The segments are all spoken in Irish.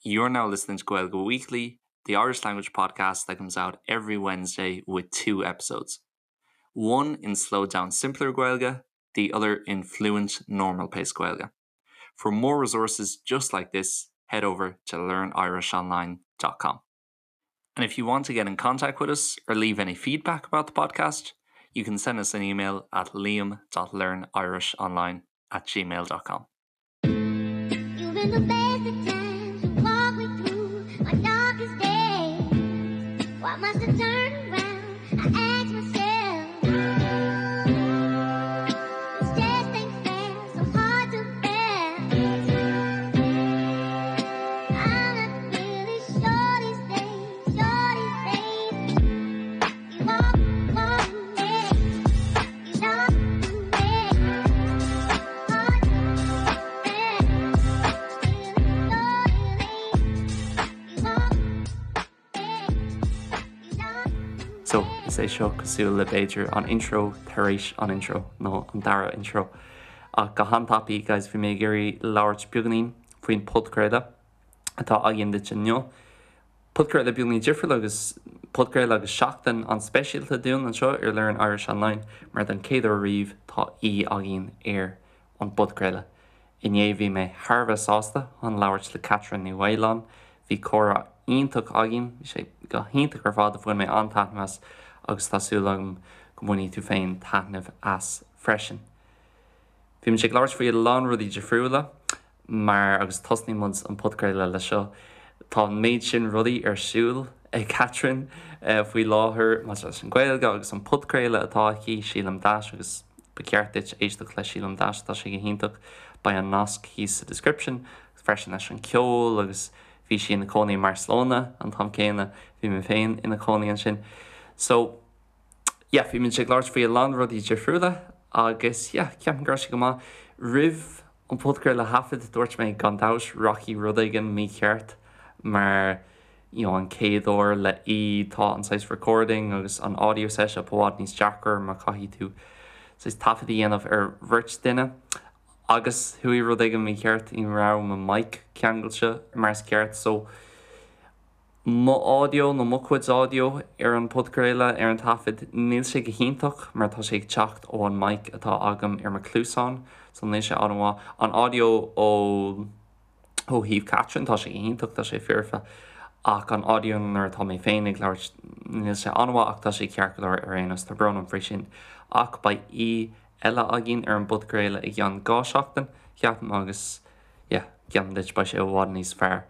You're now listening to Gaeilge Weekly, the Irish language podcast that comes out every Wednesday with two episodes. One in slowed down simpler Gaeilge, the other in fluent normal pace Gaeilge. For more resources just like this, head over to learnirishonline.com. And if you want to get in contact with us or leave any feedback about the podcast, you can send us an email at liam.learnirishonline at gmail.com. You've been the best of times. You walk me through my darkest days. Why must I turn around? I ask myself. This just ain't fair, so hard to bear. I'm not really sure these days, sure these days. You walk, walk me, you talk to me. Hard to bear. You walk me, you talk So, is é seo cosúil le b'fhéidir an intro tar éis an intro, nó an dara intro. Ach go han-tapaidh, guys, bhí mé ag iarraidh labhairt beagáinín faoin podchraoladh atá againn duit inniu. Podchraoladh beagáinín difriúil agus podchraoladh agus seachtain an-speisialta dúinn anseo ar Learn Irish Online mar don chéad uair riamh tá aoi againn ar an bpodchraoladh. Inné bhí mé thar a bheith sásta chun labhairt le Catherine Ní Mhaoláin. Bhí comhrá iontach againn, bhí sé go hiontach ar fad, bhain mé an-taitneamh as agus tá súil agam go mbainfidh tú féin taitneamh as freisin. Bhí muid ag labhairt faoi a lán rudaí difriúla mar, agus tosnaíonn muid an podchraoladh le seo, tá an méid sin rudaí ar siúl ag Catherine faoi láthair maidir leis an Ghaeilge agus an podchraoladh atá aici, Sílim Dash agus Ba cheart duit éisteacht le Sílim Dash, tá sé go hiontach. Beidh an nasc thíos sa description freisin leis an ceol agus bhí sí ina cónaí i mBarcelona an t-am céanna, bhí mé féin ina cónaí ansin. So, yeah, bhí muid ag labhairt faoi a lán rudaí difriúla agus yeah, ceapaim go raibh sé go maith. Roimh an podchraoladh a thaifead, dúirt mé gan dabht rachaidh rud éigin mícheart mar you know an chéad uair le aoi tá an saghas recording agus an audio setup i bhfad níos deacra mar caithfidh tú saghas taifead a dhéanamh ar bheirt duine agus chuaigh rud éigin mícheart ní raibh mo mic ceangailte mar is ceart so mo audio nó mo chuid audio ar an podchraoladh ar an taifead níl sé go hiontach mar tá sé ag teacht ó an mic atá agam ar mo cluasán so níl sé an-mhaith an audio ó Ó thaobh Catherine, tá sé iontach, tá sé foirfe, ach an audio nuair atá mé féin ag labhairt, níl sé an-mhaith ach tá sé ceart go leor ar aon nós, tá brón orm faoi sin. Ach beidh aoi eile againn ar an bpodchraoladh i gceann 2 seachtain, ceapaim, agus yeah, geallaim duit beidh sé i bhfad níos fearr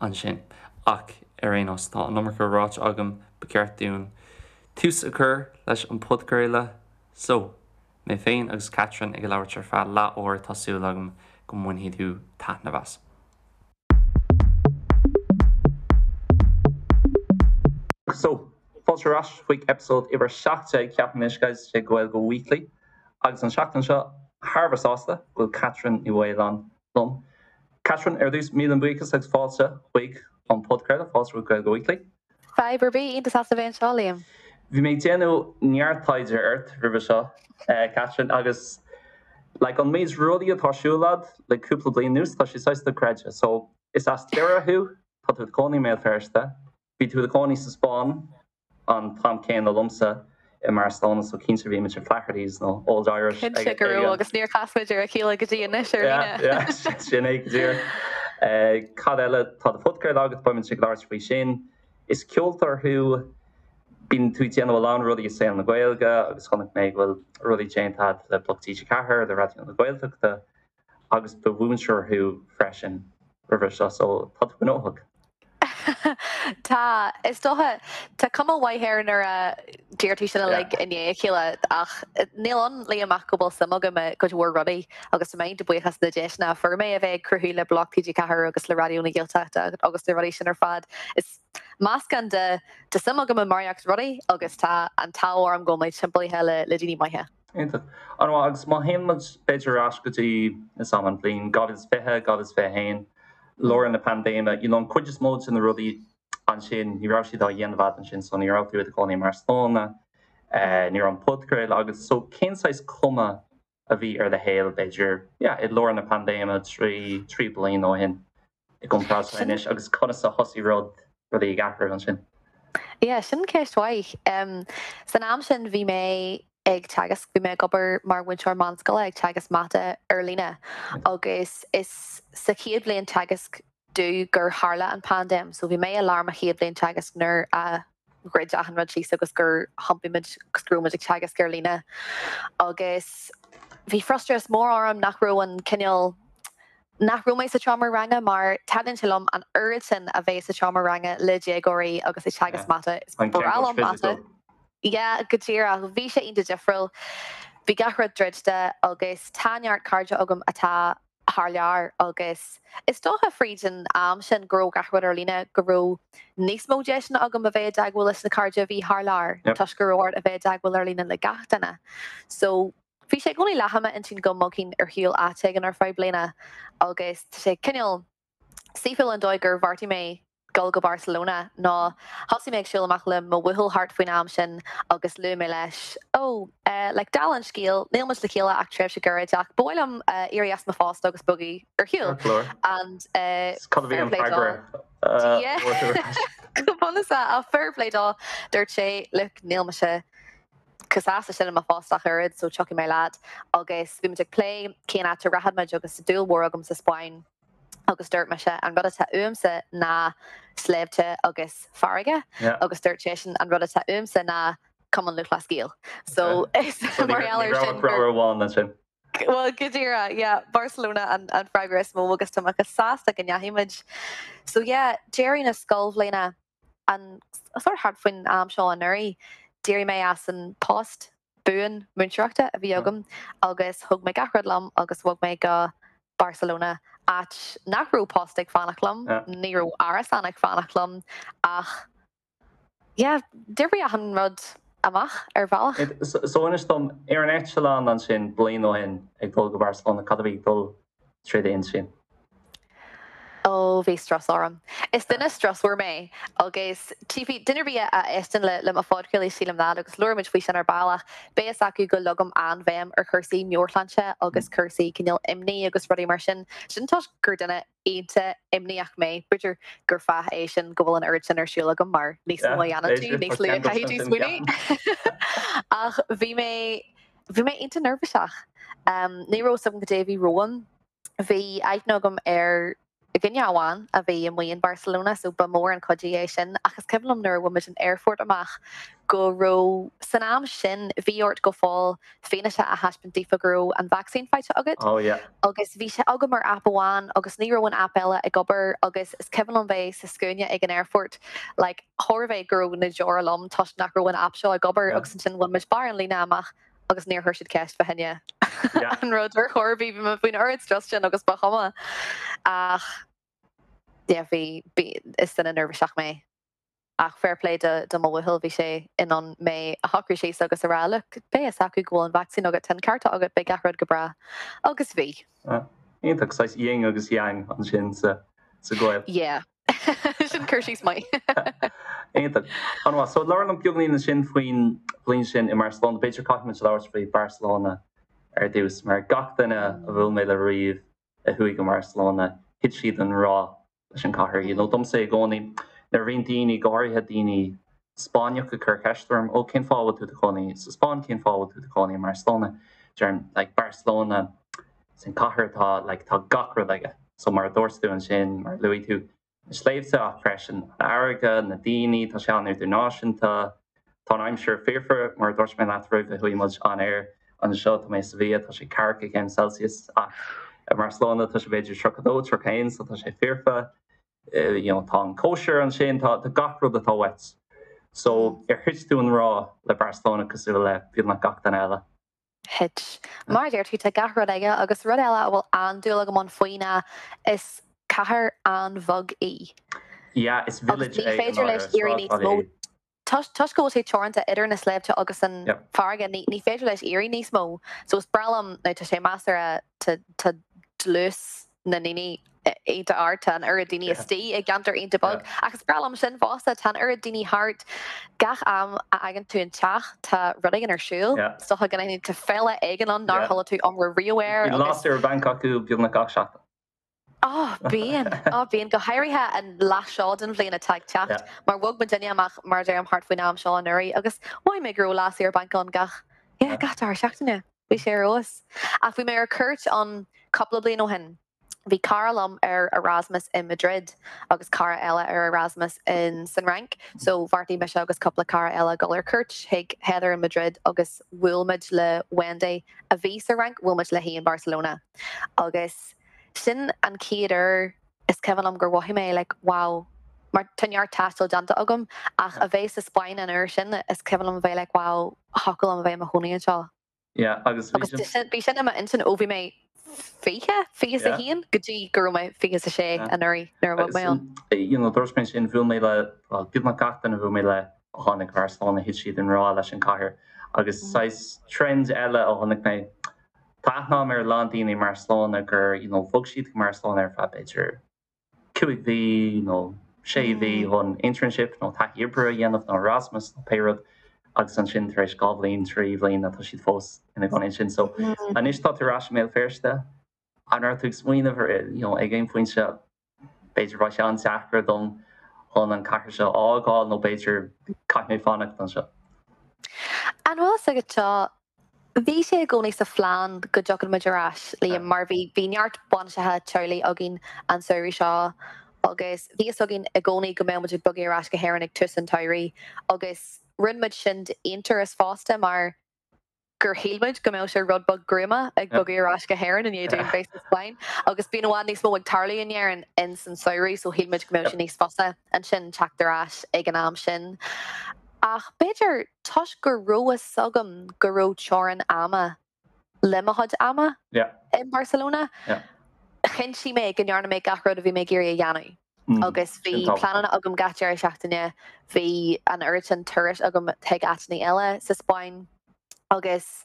ansin. Ach ar aon nós, tá an iomarca ráite agam, ba cheart dúinn tús a chur leis an bpodchraoladh, so. Mé féin agus Catherine ag labhairt ar feadh leath uair tá súil agam go mbainfidh tú taitneamh as. So, fáilte ar ais chuig episode uimhir 17 ceapaim anois guys de Gaeilge Weekly agus an seachtain seo thar a bheith sásta go bhfuil Catherine Ní Mhaoláin liom. Catherine, ar dtús míle buíochas agus fáilte chuig an podchraoladh, fáilte chuig Gaeilge Weekly. Fadhb ar bith, iontach sásta bheith anseo, Liam. Bhí mé ag déanamh neart taighde ort roimhe seo, Catherine, agus like an méid rudaí atá ar siúl agat le cúpla bliain anuas, tá sé saghas dochreidte. So, is as Doire thú, tá tú i do chónaí i mBéal Feirste, bhí tú i do chónaí sa Spáinn an t-am céanna liomsa i mBarcelona, so cinnte bhí muid i Flaherty's nó Old Irish ag Cinnte go raibh agus níor chas muid ar a chéile go dtí anois ar líne. Yeah, yeah, sin é go díreach. Cad eile? Tá do phodchraoladh agat, beidh muid ag labhairt faoi sin. Is ceoltóir thú, bíonn tú ag déanamh a lán rudaí i saol na Gaeilge agus chonaic mé go bhfuil rudaí déanta agat le Bloc TG4, le Raidió na Gaeltachta agus ba mhúinteoir thú freisin roimhe seo, so tá tú gnóthach. Tá, is dócha. Tá cuma mhaith air nuair a deir tú sin uilig i ndiaidh a chéile ach níl ann, Liam, ach go bhfuil suim agam i gcuid mhór rudaí agus tá mé iontach buíoch as na deiseanna a fuair mé a bheith ag cruthú le Bloc TG4 agus le Raidió na Gaeltachta agus na rudaí sin ar fad. Is meascán de tá suim agam i barraíocht rudaí agus tá an t-ádh orm go bhfuil mé timpeallaithe le daoine maithe. Iontach. An-mhaith. Agus má théann muid b'fhéidir ar ais go dtí is am an bhliain 2020, 2021, lár na paindéime, you know an cuid is mó de na rudaí ansin, ní raibh siad á dhéanamh agat ansin so ní raibh tú i do chónaí i mBarcelona, ní raibh an podchraoladh agat. So cén saghas cuma a bhí ar do shaol b'fhéidir, yeah, i lár na paindéime trí, trí bliana ó shin? i gcomparáid le anois agus conas a thosaigh rud, rudaí ag athrú ansin? Yeah, sin ceist mhaith. San am sin bhí mé ag teagasc, bhí mé ag obair mar mhúinteoir meánscoile ag teagasc mata ar líne agus is sa chéad bhliain teagaisc domh gur tharla an paindéim. So bhí mé i lár mo chéad bhliain teagaisc nuair a dhruid achan rud síos agus gur thiompaigh muid agus go raibh muid ag teagasc ar líne. Agus bhí frustrachas mór orm nach raibh an cineál, nach raibh mé sa tseomra ranga mar taitníonn sé liom an oiread sin a bheith sa tseomra ranga le déagóirí agus ag teagasc mata. Is breá liom mata. Yeah, go díreach. Bhí sé iontach difriúil. Bhí gach rud druidte agus tá neart cairde agam atá thar lear agus is dócha fríd an am sin go raibh gach rud ar líne go raibh níos mó deiseanna agam a bheith i dteagmháil leis na cairde a bhí thar lear toisc go raibh ort a bheith i dteagmháil ar líne le gach duine. So bhí sé i gcónaí leath i m'intinn go mbogfainn ar shiúl áit éigin ar feadh bliana agus tá sé cineál Saoithiúil an dóigh gur bheartaigh mé dul go Barcelona ná thosaigh mé ag siúl amach le mo bhuachaill thart faoin am sin agus luaigh mé leis, oh, eh, like, dála an scéil, níl muid le chéile ach tréimhse gairid ach ba mhaith liom eh, éirí as mo phost agus bogadh ar shiúl. Ceart go leor. And eh, Cad a bhí fair an play dó. freagra? eh, Yeah. a fuair tú ar ais? Go bunúsach, ach fair play dó, dúirt sé, look, níl mise chomh sásta sin i mo phost ach oiread, so tiocfaidh mé leat. Agus bhí muid ag plé cén áit a rachadh muid agus tá dúil mhór agam sa Spáinn. agus dúirt mise an rud atá uaimse ná sléibhte agus farraige agus dúirt seisean an rud atá uaimse ná Cumann Lúthchleas Gael. So is mar gheall air sin gur amháin ansin. Well go díreach, yeah, Barcelona an an freagra is mó agus tá mé chomh sásta go ndeachaigh muid. So yeah, deireadh na scoilbhliana an sort thart faoin am seo anuraidh, d'éirigh mé as an post buan múinteoireachta a bhí agam agus thóg mé gach rud liom agus bhog mé go Barcelona, áit nach raibh post ag fanacht liom, ní raibh árasán ag fanacht liom ach yeah, d'oibrigh achan rud amach ar bhealach. So inis dom, ar an eitleán ansin bliain ó shin ag dul go Barcelona, cad a bhí ag dul trí d'intinn? Ó, bhí strus orm. Is duine strusmhar mé agus tchífidh duine ar bith a éisteann le mo phodchraoladh sílim leat agus labhróidh muid faoi sin ar ball ach beidh fhios acu go leagaim an-bhéim ar chúrsaí meabhairshláinte agus cúrsaí cineál imní agus rudaí mar sin. Sin toisc gur duine iontach imníoch mé. B'fhéidir gur fáth é sin go bhfuil an oiread sin ar siúl agam mar níos mó a dhéanann tú, níos lú a chaithfidh tú smaoineamh. Ach bhí mé, bhí mé iontach neirbhíseach. Ní raibh fhios agam cad é a bhí romham. Bhí aithne agam ar dhuine amháin a bhí amuigh in Barcelona so ba mhór an cuidiú é sin ach is cuimhin liom nuair a bhain muid an aerfort amach go raibh, san am sin bhí ort go fóill fianaise a thaispeáint daofa go raibh an vacsaín faighte agat Oh yeah. agus bhí sé agam ar aip amháin agus ní raibh an aip eile ag obair agus is cuimhin liom bheith sa scuaine ag an aerfort like chóir a bheith go raibh na deora liom toisc nach raibh an aip seo ag obair agus ansin bhain muid barr an líne amach agus níor chuir siad ceist fá choinne an rud ar chor ar bith, bhí mé faoin oiread strus sin agus ba chuma. Ach yeah, bhí, bhí, is duine neirbhíseach mé. Ach fair play do, do mo bhuachaill, bhí sé in ann mé a shocrú síos agus a rá, look, beidh fhios acu go bhfuil an vacsaín agat, tá an ceart agat, beidh gach rud go breá. Agus bhí. Iontach, saghas yin agus yang ansin sa, sa ghaol. Yeah. Sin cur síos maith. Iontach. An-mhaith. So labhair liom beagáinín ansin faoin bhliain sin i mBarcelona. B'fhéidir caithfidh muid labhairt faoi Barcelona ar dtús, mar gach duine a bhuail mé le riamh a chuaigh go Barcelona, thit siad i ngrá leis an chathair. You know, domsa i gcónaí, nuair a bhíonn daoine, go háirithe daoine Spáinneach ag cur ceist orm, ó cén fáth a bhfuil tú i do chónaí sa Spáinn, cén fáth a bhfuil tú i do chónaí i mBarcelona? Deirim, like, Barcelona, sin cathair atá, like, tá gach rud aige. So mar a dúirt tú ansin, mar a luaigh tú, na sléibhte ach freisin an fharraige, na daoine, tá sé an-idirnáisiúnta, tá an aimsir foirfe, mar a dúirt mé leat roimh a chuaigh muid on air anseo, tá mé i Sevilla, tá sé ceathracha céim Celsius ach i mBarcelona tá sé b'fhéidir 32, 31 so tá sé foirfe. You know, tá an cóisir ansin, tá gach rud atá uait. So ar thit tú i ngrá le Barcelona cosúil le beagnach gach duine eile? Thit. Mar a deir tú, tá gach rud aige agus rud eile a bhfuil an-dúil agam ann faoi ná is cathair an-bheag í. Yeah, is Agus village ní é i féidir leis ndáiríre, éirí níos sráidbhaile mó. é. Toisc go bhfuil sé teoranta idir na sléibhte agus an farraige, ní féidir leis éirí níos mó. So is breá liom, now tá sé measartha, tá dlús na ndaoine iontach ard, tá an oiread daoine istigh i gceantar iontach beag, ach is breá liom sin fosta, tá an oiread daoine thart, gach am a fhágann tú an teach tá rud éigin ar siúl, is dócha go n-aithníonn tú féile éigin ann nár chuala tú iomrá riamh air agus. Bíonn lasair ar bhanc acu beagnach gach seachtain. Ó, bíonn. Ó, bíonn. Go háirithe an leath seo den bhliain atá ag teacht, mar bhog muidinne amach, mar a deirim, thart faoin am seo anuraidh agus mhothaigh mé go raibh lá saor bainc ann gach, yeah, gach dara seachtaine. Bhí sé ar fheabhas. Ach bhí mé ar cuairt ann cúpla bliain ó shin. Bhí cara liom ar Erasmus i Madrid agus cara eile ar Erasmus in san Fhrainc, so bheartaigh mise agus cúpla cara eile dul ar cuairt chuig Heather in Madrid agus bhuail muid le Wendy a bhí sa Fhrainc, bhuail muid léi in Barcelona agus sin an chéad uair is cuimhin liom gur mhothaigh mé like wow mar tá neart taistil déanta agam ach a bheith sa Spáinn an uair sin is cuimhin liom a bheith like wow thiocfadh liom a bheith i mo chónaí anseo. Yeah, agus bhí sin. Agus bhí sin i m'intinn ó bhí mé 20, 21 go dtí go raibh mé 26 anuraidh nuair a bhog mé ann. You know, dúirt mé sin, bhuail mé le, well, beagnach gach duine a bhuail mé le a tháinig go Barcelona, thit siad i ngrá leis an cathair. Agus saghas trend eile a chonaic mé, tá aithne agam ar a lán daoine i mBarcelona gur, you know, bhog siad go Barcelona ar feadh b'fhéidir 5 mhí nó 6 mhí chun internship nó taithí oibre a dhéanamh nó Erasmus nó pé rud agus ansin tar éis 2 bhliain, 3 bhliain tá siad fós ina gcónaí ansin. So anois tá tú ar ais i mBéal Feirste, an raibh tú ag smaoineamh ar you know ag aon phointe b'fhéidir beidh sé an-deacair dom chun an cathair seo a fhágáil nó b'fhéidir caithfidh mé fanacht anseo? An bhfuil fhios agat seo, Bhí sé i gcónaí sa phlean go dtiocfadh muid ar ais, Liam, mar bhí bhí neart bainiseacha teaghlaigh againn an samhradh seo agus bhí fhios againn i gcónaí go mbeadh muid ag bogadh ar ais go hÉirinn ag tús an tsamhraidh agus rinne muid sin d'aonturas fosta mar gur shíl muid go mbeadh sé rud beag gruama ag bogadh ar ais go hÉirinn i ndiaidh dúinn bheith sa Spáinn agus bíonn i bhfad níos mó ag tarlú in Éirinn ins an samhradh so shíl muid go mbeadh sé níos fusa ansin teacht ar ais ag an am sin. Ach b'fhéidir toisc go raibh fhios agam go raibh teorainn ama le mo chuid ama i mBarcelona, chinntigh mé go ndearna mé gach rud a bhí mé ag iarraidh a dhéanamh. Agus bhí pleananna agam gach deireadh seachtaine, bhí an oiread sin turais agam chuig áiteanna eile sa Spáinn agus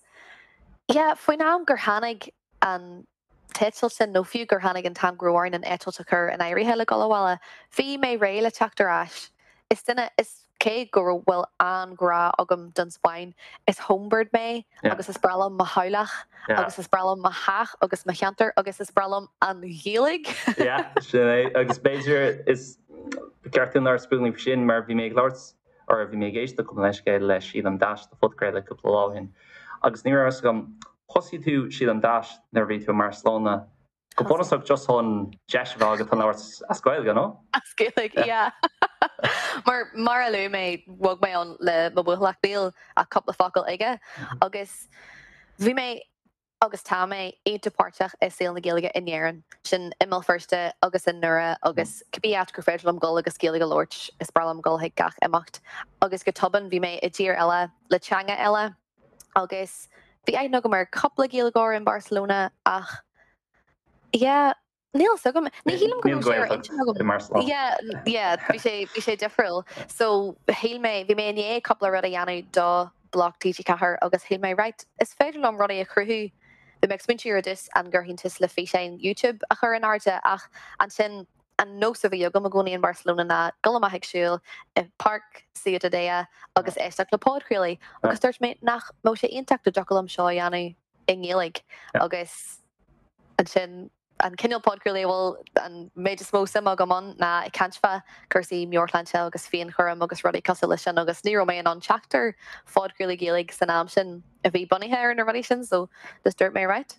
yeah, faoin am gur tháinig an t-eitilt sin, nó fiú gur tháinig an t-am go raibh orainn an eitilt a chur in áirithe le dul abhaile, bhí mé réidh le teacht ar ais. Is duine, is cé go raibh, bhfuil an-ghrá agam don Spáinn, is homebird mé agus is breá liom mo theaghlach agus is breá liom mo theach agus mo cheantar agus is breá liom an Ghaeilge. Yeah, sin é. Agus b'fhéidir is ceart dúinn labhairt beagáinín faoi sin mar bhí mé ag labhairt or bhí mé ag éisteacht gabh mo leithscéal le Sílim Dash do phodchraoladh cúpla lá ó shin agus ní raibh a fhios agam, thosaigh tú Sílim Dash nuair a bhí tú i mBarcelona go bunúsach just chun deis a bheith agat chun labhairt as Gaeilge, nó? As Gaeilge, yeah. Mar, mar a luaigh mé, bhog mé ann le mo bhuachaill ach níl ach cúpla focal aige agus bhí mé agus tá mé iontach páirteach i saol na Gaeilge in Éirinn, sin i mBéal Feirste agus i nDoire agus cibé áit gur féidir liom dul agus Gaeilge a labhairt, is breá liom dul chuig gach imeacht. Agus go tobann bhí mé i dtír eile le teanga eile agus bhí aithne agam ar cúpla Gaeilgeoir in Barcelona ach yeah, Níl fhios agam. Ní shílim go raibh sé ar intinn agam. Yeah, yeah, bhí sé, bhí sé difriúil. So, shíl mé, bhí mé i ndiaidh cúpla rud a dhéanamh do Bloc TG4 agus shíl mé, right, is féidir liom rudaí a chruthú. Bhí mé ag smaointiú ar dtús an gcuirfinn tús le físeáin YouTube a chur in airde ach ansin an nós a bhí agam i gcónaí in Barcelona ná dul amach ag siúl i Páirc Ciutadella agus éisteacht le podchraolaí agus dúirt mé nach mbeadh sé iontach dá dtiocfadh liom seo a dhéanamh i nGaeilge agus ansin an cineál podchraolaí a bhfuil an méid is mó suime agam ann ná ag caint fá cúrsaí meabhairshláinte agus féinchúram agus rudaí cosúil leis sin agus ní raibh mé in ann teacht ar phodchraolaí Gaeilge san am sin a bhí bunaithe ar na rudaí sin so just dúirt mé right,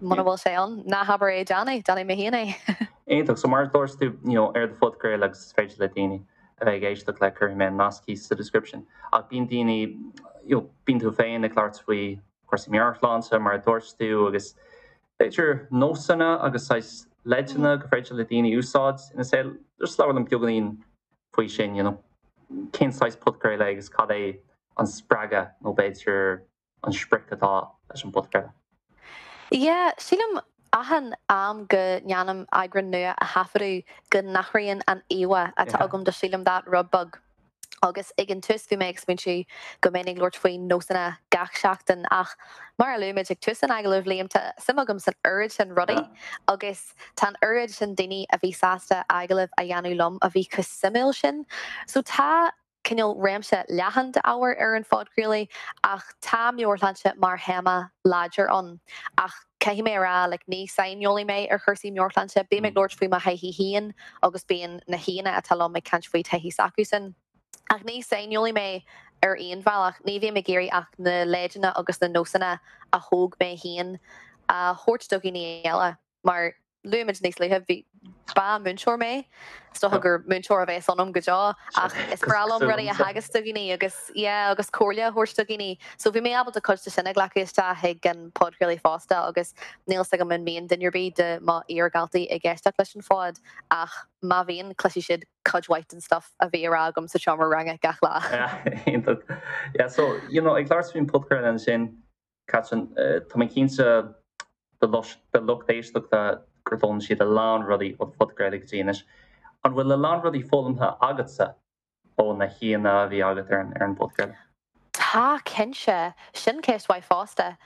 muna bhfuil sé ann, ná habair é déan é, déanfaidh mé féin é. Iontach, so mar a dúirt tú you know ar do phodchraoladh agus is féidir le daoine a bheith ag éisteacht le cuirfidh mé an nasc thíos sa description ach bíonn daoine you know bíonn tú féin ag labhairt faoi cúrsaí meabhairshláinte mar a dúirt tú agus b'fhéidir nósanna agus saghas leideanna gur féidir le daoine úsáid ina saol. Just labhair liom beagáinín faoi sin, you know, cén saghas podchraoladh é agus cad é an spreagadh nó b'fhéidir an sprioc atá leis an bpodchraoladh? Yeah, sílim achan am go ndéanaim eagrán nua a thaifeadadh go n-athraíonn an íomhá atá agam de Sílim That rud beag. Agus ag an tús bhí mé ag smaointiú go mbeinn ag labhairt faoi nósanna gach seachtain ach mar a luaigh muid ag tús an agallaimh, Liam, tá suim agam san oiread sin rudaí agus tá an oiread sin daoine a bhí sásta agallamh a dhéanamh liom a bhí chomh suimiúil sin. So tá. cineál réimse leathan d'ábhar ar an phodchraoladh ach tá meabhairshláinte mar théama láidir ann. Ach caithfidh mé a rá, like, ní saineolaí mé ar chúrsaí meabhairshláinte. Bím ag labhairt faoi mo thaithí féin agus bíonn na haíonna atá liom ag caint faoi taithí s'acusan. Ach ní saineolaí mé ar aon bhealach. Ní bhím ag iarraidh ach na leideanna agus na nósanna a thóg mé féin a thabhairt do dhaoine eile. Mar luaigh muid níos luaithe, bhí, ba múinteoir mé. Is dócha gur múinteoir a bheas ionam go deo ach is breá liom rudaí a theagasc do dhaoine agus, yeah, agus comhairle a thabhairt do dhaoine. So bhí mé ábalta cuid de sin a ghlacadh isteach chuig an podchraoladh fosta agus níl 'fhios agam an mbíonn duine ar bith de mo iar-dhaltaí ag éisteacht leis an phod ach má bhíonn, cloisfidh siad cuid mhaith den stuff a bhí á rá agam sa seomra ranga gach lá. Yeah, iontach. Yeah, so, you know, ag labhairt faoin podchraoladh ansin, Catherine, tá mé cinnte do lucht éisteachta gur d'fhoghlaim siad a lán rudaí ó do phodchraoladh go dtí anois. An bhfuil a lán rudaí foghlamtha agatsa ó na haíonna a bhí agat ar an bpodchraoladh? Tá, cinnte. Sin ceist mhaith fosta.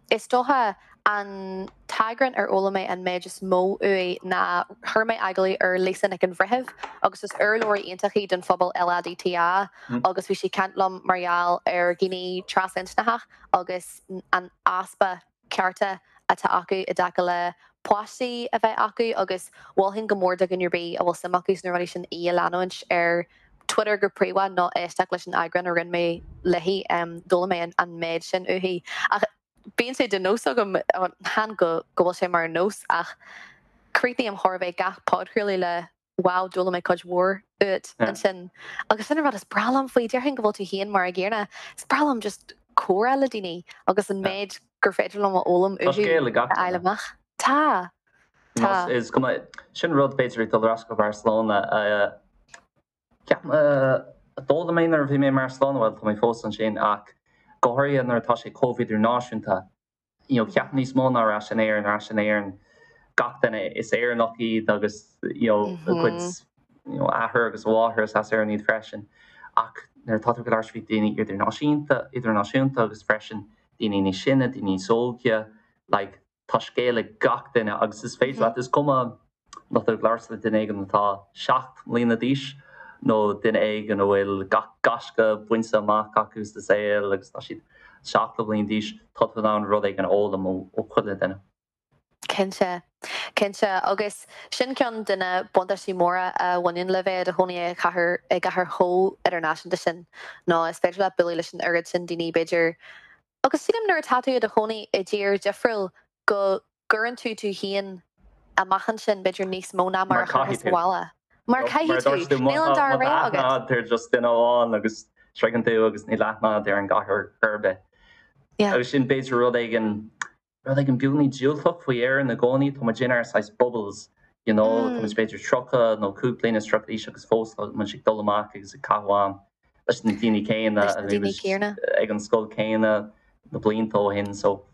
Is dócha an t-eagrán ar fhoghlaim mé an méid is mó uaidh ná chuir mé agallamh ar Lisa Nic an Bhreithimh agus is urlabhraí iontach í don phobal LADTA agus bhí sí ag caint liom mar gheall ar dhaoine trasinscneacha agus an easpa cearta atá acu i dtaca le páistí a bheith acu agus mholfainn go mór do dhuine ar bith a bhfuil suim acu sna rudaí sin í a leanúint ar Twitter go príomha nó éisteacht leis an eagrán a rinne mé léi. D'fhoghlaim mé an méid sin uaithi. Ach bíonn sé de nós agam, chan go bhfuil sé mar nós ach críochnaím chóir a bheith gach podchraoladh le wow, d'fhoghlaim mé cuid mhór uait ansin. Agus sin an rud is breá liom faoi, déarfainn go bhfuil tú féin mar an gcéanna, is breá liom just comhrá le daoine agus an méid gur féidir liom a fhoghlaim uathu a fháil amach. Tá. Tá. Is cuma, sin rud b'fhéidir ag dul ar ais go Barcelona, ceapaim, a d'fhoghlaim mé nuair a bhí mé i mBarcelona, bhuel tá mé fós ansin ach go háirithe nuair atá sé chomh idirnáisiúnta, you know, ceapaim níos mó ná ar ais in Éirinn, ar ais in Éirinn gach duine is Éireannach iad agus you know, a gcuid you know, athair agus a mháthair is as Éirinn iad freisin. Ach nuair atá tú ag labhairt faoi daoine idirnáisiúnta, idirnáisiúnta agus freisin daoine níos sine, daoine níos óige, like, tá scéal ag gach duine agus is féidir leat, is cuma má tá tú ag labhairt le duine éigin atá 7 mbliana d'aois nó duine éigin a bhfuil gach gaisce bainte amach acu sa saol agus tá siad 70 bliain d'aois, tá tú in ann rud éigin a fhoghlaim ó chuile duine. Cinnte. Cinnte. Agus sin ceann de na buntáistí móra a bhaineann le bheith i do chónaí i gcathair, i gcathair chomh idirnáisiúnta sin, ná is féidir leat bualadh leis an oiread sin daoine, b'fhéidir, Agus sílim nuair atá tú i do chónaí i dtír difriúil go gcuireann tú tú féin amach ansin b'fhéidir níos mó ná mar a chuirfeá sa bhaile. Mar caithfidh tú. Níl an dara rogha agat. Má tá aithne agat ar just duine amháin agus sroicheann tú agus níl aithne agat ar an gcathair ar bith. Agus sin b'fhéidir rud éigin rud éigin beagáinín diúltach faoi Éirinn i gcónaí, tá muid inár saghas bubbles, you know, tá muid b'fhéidir 30 nó 35 bliana d'aois agus fós tá muid ag dul amach agus ag caitheamh am leis na daoine céanna Leis na daoine céanna. ag an scoil céanna na blianta ó shin, so.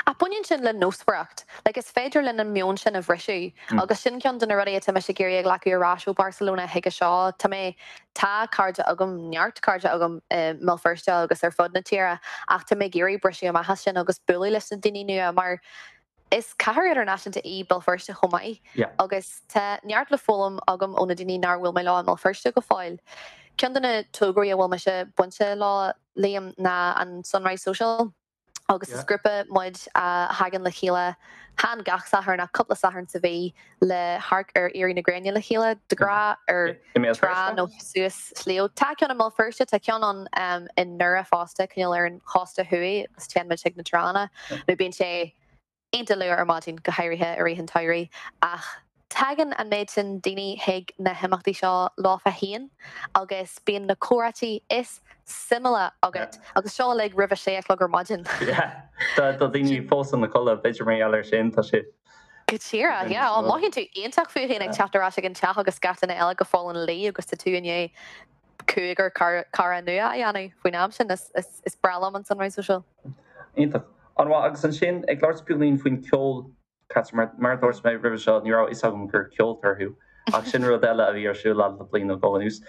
Ach baineann sin le nósmhaireacht. Like, is féidir linn an meon sin a bhriseadh agus sin ceann de na rudaí atá mise ag iarraidh a ghlacadh ar ais ó Barcelona chuige seo. Tá mé Tá cairde agam, neart cairde agam i mBéal Feirste agus ar fud na tíre ach tá mé ag iarraidh briseadh amach as sin agus bualadh leis na daoine nua mar is cathair idirnáisiúnta í Béal Feirste chomh maith agus tá neart le foghlaim agam ó na daoine nár bhuail mé leo i mBéal Feirste go fóill. Ceann de na tograí a bhfuil mise bainte leo, Liam, ná an Sunrise Social. agus is grúpa muid a thagann le chéile, chan gach Satharn ach cúpla Satharn sa mhí le hamharc ar éirí na gréine le chéile, de ghnáth ar trá nó suas sliabh. Tá ceann i mBéal Feirste, tá ceann ann i nDoire fosta, cineál ar an chósta thuaidh agus téann muid chuig na tránna nó bíonn sé iontach luath ar maidin, go háirithe i rith an tsamhraidh, ach tagann an méid sin daoine chuig na himeachtaí seo leofa féin agus bíonn na comhráití is suimiúla agat agus seo uilig roimh a sé a chlog ar maidin. Yeah, tá daoine fós ina codladh, b'fhéidir mar gheall air sin, tá sé. Go díreach, yeah. Ó, mothaíonn tú iontach fút féin ag teacht ar ais ag an teach agus gach duine eile go fóill ina luí agus tá tú i ndiaidh cúigear cara nua a dhéanamh faoin am sin. Is breá liom an Sunrise Social. Iontach. An-mhaith. Agus ansin, ag labhairt beagáinín faoin ceol, Catherine, mar a dúirt mé roimhe seo, ní raibh a fhios agam gur ceoltóir thú, ach sin rud eile a bhí ar siúl agat le bliain nó dhó anuas.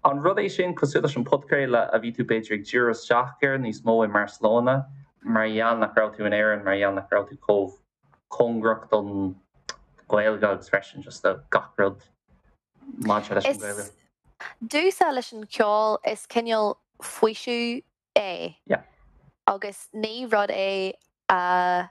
An rud é sin, cosúil leis an podchraoladh, a bhí tú b'fhéidir ag díriú isteach air níos mó i mBarcelona, mar gheall nach raibh tú in Éirinn, mar gheall nach raibh tú chomh cóngarach don Ghaeilge agus freisin just do gach rud maidir leis an Ghaeilge? Domhsa leis an cheol is cineál faoiseamh é agus ní rud é a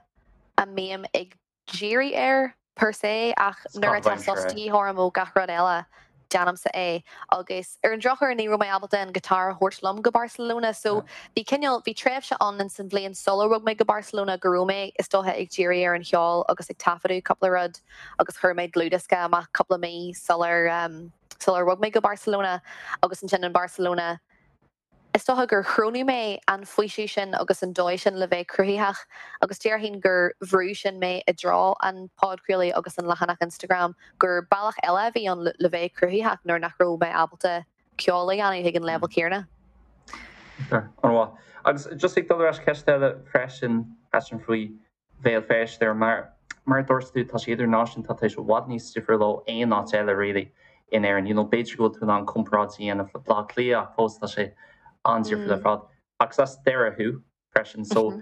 a mbím ag díriú air per se ach nuair atá sos de dhíth orm ó gach rud eile, déanaimse é. Agus ar an drochuair ní raibh mé ábalta an guitar a thabhairt liom go Barcelona so bhí cineál, bhí tréimhse ann ins an bhliain sular bhog mé go Barcelona go raibh mé is dócha ag díriú ar an cheol agus ag taifeadadh cúpla rud agus chuir mé dlúthdhiosca amach cúpla mí sular sular bhog mé go Barcelona agus ansin in Barcelona Is dócha gur chronaigh mé an faoiseamh sin agus an dóigh sin le bheith cruthaitheach agus déarfainn gur bhrúigh sin mé i dtreo an podchraoladh agus an leathanach Instagram, gur bealach eile a bhí ann le bheith cruthaitheach nuair nach raibh mé ábalta ceol a dhéanamh ag an leibhéal céanna. An-mhaith. Agus just ag dul ar ais ceist eile freisin, freisin faoi Bhéal Feirste mar mar a dúirt tú, tá sé idirnáisiúnta, tá sé i bhfad níos difriúil ó aon áit eile really in Éirinn. You know, b'fhéidir go bhfuil tú in ann comparáid a dhéanamh le Baile Átha Cliath ach fós tá sé an-difriúil ar fad. Agus as Doire thú freisin, so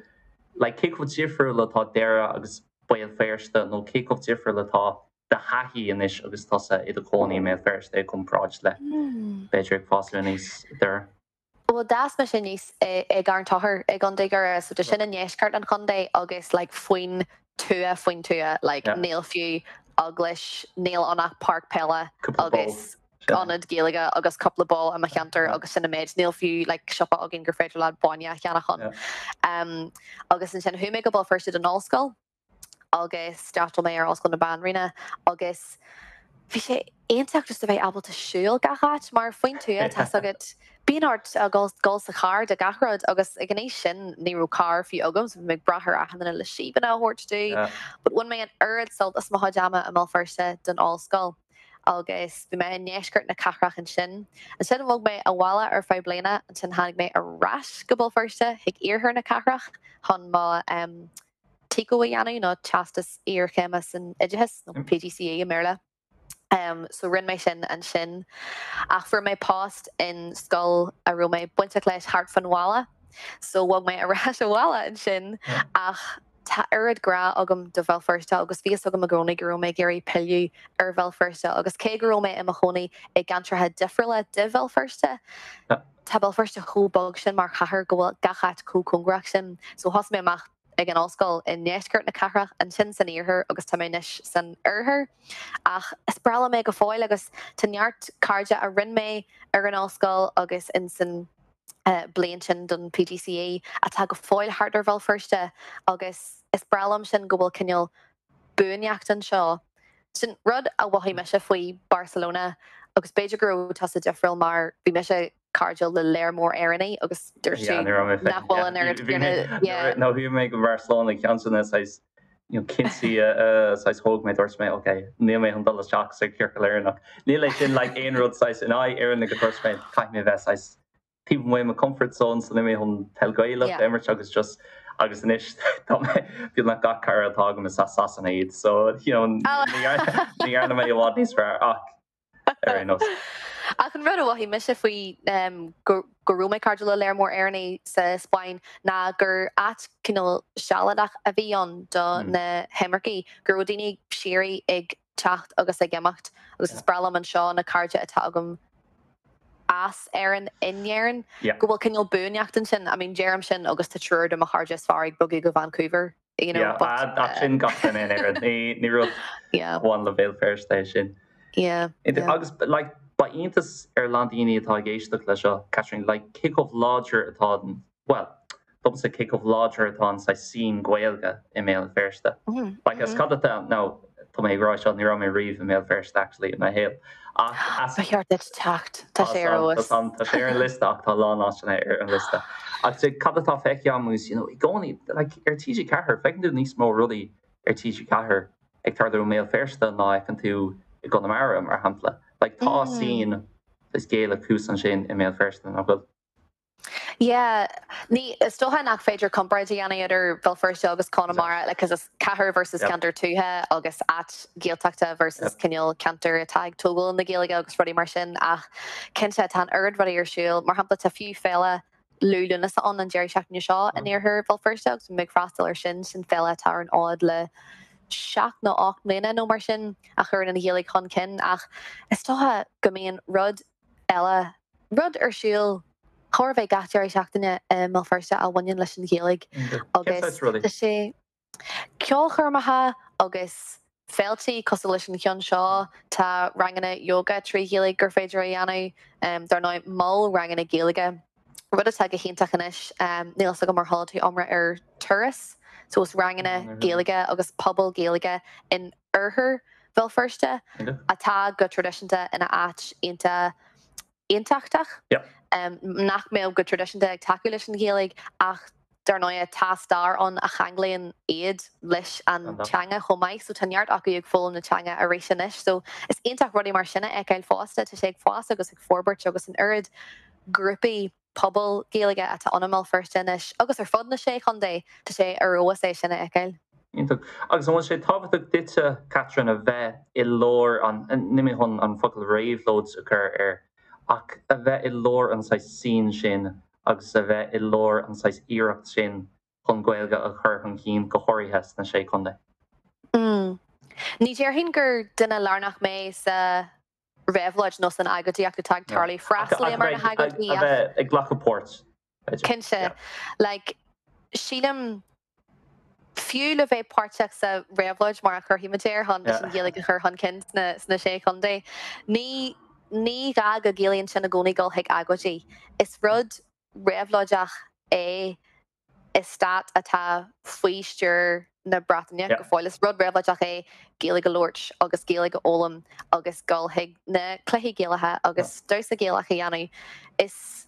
like cé chomh difriúil atá Doire agus Béal Feirste nó cé chomh difriúil atá do thaithí anois agus tusa i do chónaí i mBéal Feirste i gcomparáid le b'fhéidir ag fás aníos i nDoire? Bhuel, d'fhás mise aníos i gCarn Tóchair i gContae Dhoire, so tá sin i ndeisceart an chontae agus like faoin tuath faoin tuath, like níl fiú eaglais, níl ann ach páirc peile agus ionad Gaeilge agus cúpla bó i mo cheantar agus sin an méid, níl fiú like siopa againn gur féidir leat bainne a cheannach ann. Agus ansin chuaigh mé go Béal Feirste don ollscoil. agus d'fhreastail mé ar Ollscoil na Banríona agus bhí sé iontach just a bheith ábalta siúl gach áit mar faoin tuath tá's agat bíonn ort a dhul dul sa charr do gach rud agus ag an aois sin ní raibh carr fiú agam so bhí mé ag brath ar achan duine le síobanna a thabhairt domh but bhain mé an oiread sult as mo chuid ama i mBéal Feirste don ollscoil agus bhí mé i ndeisceart na cathrach ansin. Ansin bhog mé abhaile ar feadh bliana, ansin tháinig mé ar ais go Béal Feirste chuig iarthar na cathrach chun mo TCO a dhéanamh, nó Teastas Iarchéime san Oideachas, nó PGCE i mBéarla. So rinne mé sin ansin. Ach fuair mé post in scoil a raibh mé bainteach leis thart fán bhaile. So bhog mé ar ais abhaile ansin. Ach tá oiread grá agam do Bhéal Feirste agus bhí fhios agam i gcónaí go raibh mé ag iarraidh pilleadh ar Bhéal Feirste. Agus cé go raibh mé i mo chónaí i gceantracha difriúla de Bhéal Feirste, Tá Béal Feirste chomh beag sin mar chathair go bhfuil gach áit chomh cóngarach sin. So thosaigh mé amach ag an ollscoil i ndeisceart na cathrach, ansin san iarthar agus tá mé anois san oirthear. Ach is breá liom é go fóill agus tá neart cairde a rinne mé ar an ollscoil agus in san bliain sin don PGCE atá go fóill thart ar Bhéal Feirste agus is breá liom sin go bhfuil cineál buaineacht anseo. Sin rud a mhothaigh mise faoi Barcelona agus b'fhéidir go raibh tusa difriúil mar bhí mise cairdiúil le léar mór Éireannaigh agus dúirt tú nach bhfuil an oiread céanna. Nuair a chuaigh mé go Barcelona ceann de na saghas cinntí a saghas thóg mé dúirt mé ok níl mé chun dul isteach sa ciorcal Éireannach. Níl é sin like aon rud saghas in aghaidh Éireannaigh go dúirt mé caithfidh mé bheith saghas taobh amuigh mo comfort zone so níl mé chun peil Gaelach a imirt agus just agus anois tá mé beagnach gach cara atá agam is as Sasana iad so you know ní dhearna mé i bhfad níos fearr ach ar aon nós. Ach an rud a mhothaigh mise faoi go raibh mé cairdiúil le léar mór Éireannaigh sa Spáinn ná gur áit cineál sealadach a bhí ann do na himircigh, go raibh daoine síoraí ag teacht agus ag imeacht agus is breá liom anseo na cairde atá agam as Éirinn in Éirinn, go bhfuil cineál buaineacht ansin. I mean, deirim sin agus tá triúr de mo chairde is fearr ag bogadh go Vancouver, you know, but. Yeah, ach sin gach duine in Éirinn. Ní, ní rud a bhain le Béal Feirste é sin. Yeah, yeah. Agus, like, ba iontas ar a lán daoine atá ag éisteacht le seo, Catherine, like, cé chomh láidir atá an, bhuel, domsa cé chomh láidir atá an saghas scene Gaeilge i mBéal Feirste. Like as cad atá, now, tá mé ag rá seo, ní raibh mé riamh i mBéal Feirste actually i mo shaol. Ach as. Ba cheart duit teacht, tá sé ar fheabhas. Tá sé ar an liosta ach tá a lán áiteanna ar an liosta. Ach cad atá feicthe agam is, you know, i gcónaí, like ar TG4, feiceann tú níos mó rudaí ar TG4 ag tarlú i mBéal Feirste ná a fheiceann tú i gConamara, mar shampla. Like tá scene is Gaelach thuas ansin i mBéal Feirste, nach bhfuil? Yeah, ní, is dócha nach féidir comparáid a dhéanamh idir Béal Feirste agus Conamara, like, 'cause is cathair versus ceantar tuaithe agus áit Ghaeltachta versus cineál ceantar atá ag tógáil na Gaeilge agus rudaí mar sin, ach cinnte tá an oiread rudaí ar siúl, mar shampla tá fiú féile Liú Lúnasa ann an deireadh seachtaine seo in iarthar Bhéal Feirste agus bhí mé ag freastal ar sin, sin féile atá ar an fhód le seacht nó 8 mbliana nó mar sin a chuireann an Ghaeilge chun cinn ach is dócha go mbíonn rud. eile rud ar siúl chóir a bheith gach deireadh seachtaine i mBéal Feirste a bhaineann leis an Ghaeilge agus tá sé ceolchoirmeacha agus féiltí cosúil leis an cheann seo, tá ranganna yoga 3 Ghaeilge gur féidir a dhéanamh, dar ndóigh mol ranganna Gaeilge, rud atá go hiontach anois, níl fhios agam ar chuala tú iomrá ar Turas, so is ranganna Gaeilge agus pobal Gaeilge in oirthear Bhéal Feirste atá go traidisiúnta ina áit iontach aontachtach, nach mbeadh go traidisiúnta ag tacú leis an Ghaeilge ach dar ndóigh tá stair ann a cheanglaíonn iad leis an teanga chomh maith so tá neart acu ag foghlaim na teanga arís anois so is iontach rudaí mar sin a fheiceáil fosta, tá sé ag fás agus ag forbairt agus an oiread grúpaí pobail Gaeilge atá ann i mBéal Feirste anois agus ar fud na Sé Chontae, tá sé ar fheabhas é sin a fheiceáil. Iontach. Agus an bhfuil sé tábhachtach duitse, Catherine, a bheith i lár an, níl mé chun an focal réabhlóid a chur air, ach a bheith i lár an saghas scene sin agus a bheith i lár an saghas iarracht sin chun Gaeilge a chur chun cinn, go háirithe sna Sé Chontae? Mm. Ní déarfainn gur duine lárnach mé sa réabhlóid nó san agóidíocht atá ag tarlú. Freastalaím ar na hagóidí ach. A bheith ag glacadh páirt, b'fhéidir. Cinnte. Like, sílim, fiú le bheith páirteach sa réabhlóid, mar a chuirfidh muid air, chun leis an Ghaeilge a chur chun cinn sna, sna Sé Chontae, ní, ní gá go gciallaíonn sin i gcónaí dul chuig agóidí. Is rud réabhlóideach é i stát atá faoi stiúir na Breataine go fóill. Is rud réabhlóideach é Gaeilge a labhairt agus Gaeilge a fhoghlaim agus dul chuig na cluichí Gaelacha agus damhsa Gaelach a dhéanamh. Is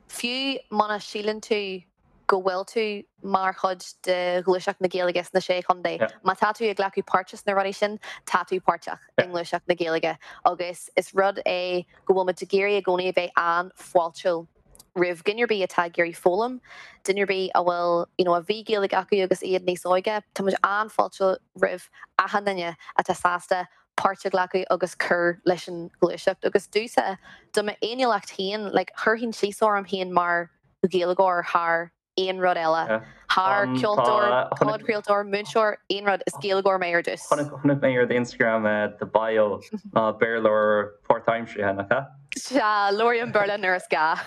fiú muna síleann tú go bhfuil tú mar chuid de ghluaiseacht na Gaeilge sna Sé Chontae, má tá tú ag glacadh páirte sna rudaí sin, tá tú páirteach i ngluaiseacht na Gaeilge agus is rud é go bhfuil muid ag iarraidh i gcónaí a bheith an-fháiltiúil. roimh dhuine ar bith atá ag iarraidh foghlaim, duine ar bith a bhfuil, you know, a bhí Gaeilge acu agus iad níos óige, tá muid an-fháiltiúil roimh achan duine atá sásta páirt a ghlacadh agus cur leis an ghluaiseacht. Agus domhsa, do m'fhéiniúlacht féin, like, chuirfinn síos orm féin mar Ghaeilgeoir thar aon rud eile. Thar ceoltóir, podchraoltóir, múinteoir, aon rud, is Gaeilgeoir mé ar dtús. Chonaic mé ar d'Instagram do bio ná Béarlóir páirtaimseartha, nach ea? Sea, labhraím Béarla nuair is gá.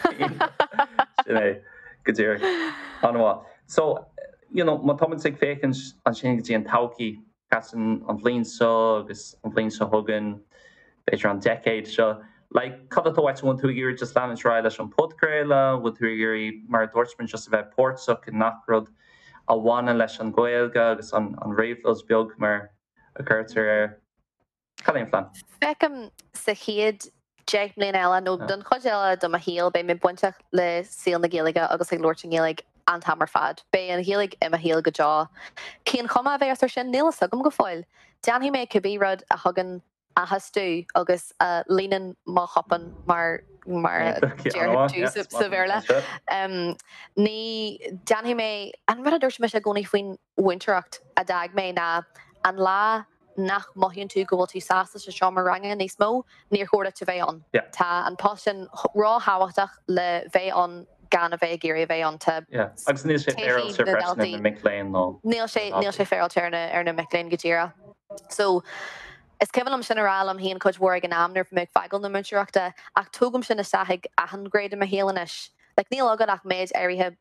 Sin é, go díreach. An-mhaith. So, you know, má táimid ag féachaint ansin go dtí an todhchaí, Catherine, an bhliain seo agus an bhliain seo chugainn, b'fhéidir an deicéad seo, like, cad atá uait? An bhfuil tú ag iarraidh just leanúint ar aghaidh leis an podchraoladh? An bhfuil tú ag iarraidh, mar a dúirt muid, just a bheith páirteach i ngach rud a bhaineann leis an Ghaeilge agus an réabhlóid beag mar a chuirtear air? Cad é an plean? Feicim sa chéad 10 mbliana eile, nó don chuid eile de mo shaol, beidh mé bainteach le saol na Gaeilge agus ag labhairt i nGaeilge an t-am ar fad. Beidh an Ghaeilge i mo shaol go deo. Cén chuma a bheas air sin? Níl fhios agam go fóill. Déanfaidh mé cibé rud a thugann áthas domh agus a líonann mo chupán mar mar a deir tú sa Bhéarla. Ní déanfaidh mé an rud a dúirt mise i gcónaí faoin mhúinteoireacht a d'fhág mé ná an lá nach mothaíonn tú go bhfuil tú sásta sa seomra ranga níos mó, níor chóir duit a bheith ann. Tá an post sin ró-thábhachtach le bheith ann gan a bheith ag iarraidh a bheith ann. Tá Agus níl sé féaráilte freisin ar na mic léinn nó. Níl sé, níl sé féaráilte ar na, ar na mic léinn go díreach. So, is cuimhin liom sin a rá liom féin cuid mhór ag an am nuair a bhí mé ag fágáil na múinteoireachta ach tógaim sin isteach ag achan ghné de mo shaol anois. Like, níl agat ach méid áirithe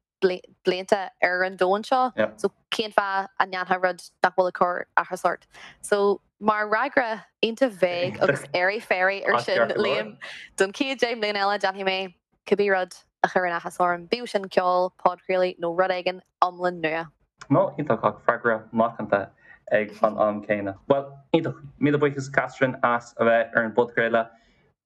blianta ar an domhan seo, so cén fáth a ndéanfá rud nach bhfuil ag cur áthas ort? So, mar fhreagra iontach vague agus airy fairy ar sin, Liam, don chéad 10 mbliana eile déanfaidh mé cibé rud a chuireann áthas orm, bíodh sin ceol, podchraoladh nó rud éigin iomlán nua. No, iontach, ach freagra macánta ag an am céanna. Bhuel, iontach. Míle buíochas Catherine as a bheith ar an bpodchraoladh.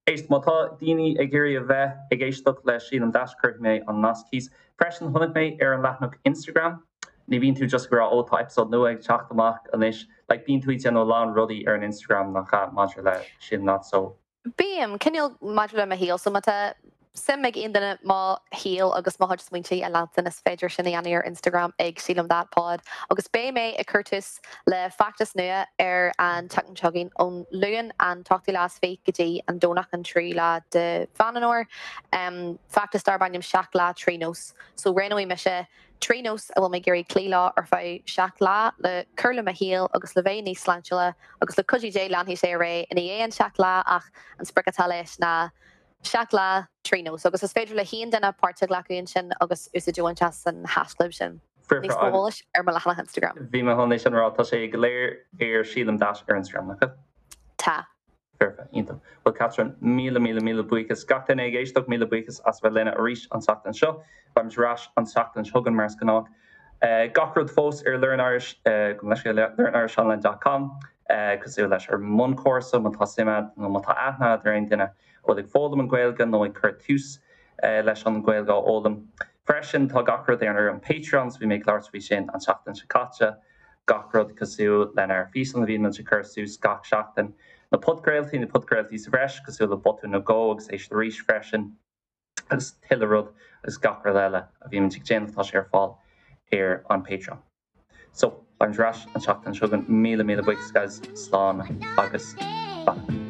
Éist, má tá daoine ag iarraidh a bheith ag éisteacht le Sílim That, cuirfidh mé an nasc thíos. Freisin, chonaic mé ar an leathanach Instagram, ní bhíonn tú just ag rá 'ó tá episode nua ag teacht amach anois', like bíonn tú ag déanamh a lán rudaí ar an Instagram nach ea, maidir le Sílim That, so. Bím, cineál maidir le mo shaol, so má tá suim ag aon duine mo shaol agus mo chuid smaointe a leanstan, is féidir sin a dhéanamh ar Instagram ag Sílim That Pod. Agus beidh mé ag cur tús le feachtas nua ar an tseachtain seo chugainn, ón Luan an t-ochtú lá is fiche go dtí an Domhnach an tríú lá de Mheán an Fhómhair. Feachtas darb ainm 7 Lá 3 Nós. So roghnóidh mise 3 nós a bhfuil mé ag iarraidh cloí leo ar feadh 7 lá le cur le mo shaol agus le bheith níos sláintiúla agus le cuidiú Dé leanfaidh sé ar aghaidh i ndiaidh an 7 lá ach an sprioc atá leis ná. 7 lá 3 nós agus is féidir le haon duine páirt a ghlacadh ansin agus úsáid a bhaint as an haischlib sin. Níos mó eolais ar mo leathanach Instagram. Bhí mé chun é sin a rá, tá sé go léir ar Sílim Dash ar Instagram, nach bhfuil? Tá. Foirfe, iontach. Bhuel Catherine, míle míle míle buíochas. Gach duine ag éisteacht, míle buíochas as a bheith linn arís an tseachtain seo. Beimid ar ais an tseachtain seo chugainn mar is gnách. Gach rud fós ar Learn Irish, gabh mo leithscéal, learnirishonline dot com, cosúil leis ár mbunchúrsa má tá suim agat nó má tá aithne agat ar aon duine a bhfuil ag foghlaim an Ghaeilge nó ag cur tús leis an Ghaeilge a fhoghlaim. Freisin tá gach rud ar an Patreon, so bhí mé ag labhairt faoi sin an tseachtain seo caite, gach rud cosúil lenár bhfíseáin a bhíonn muid ag cur suas gach seachtain, na podchraoltaí, na podchraoltaí sa bhreis cosúil le Botún nó Dhó agus Éist Arís freisin, agus tuilleadh rud agus gach rud eile a bhímid ag déanamh tá sé ar fáil ar an Patreon. So, beimid ar ais an tseachtain seo chugainn. Míle míle buíochas guys, slán agus beannacht.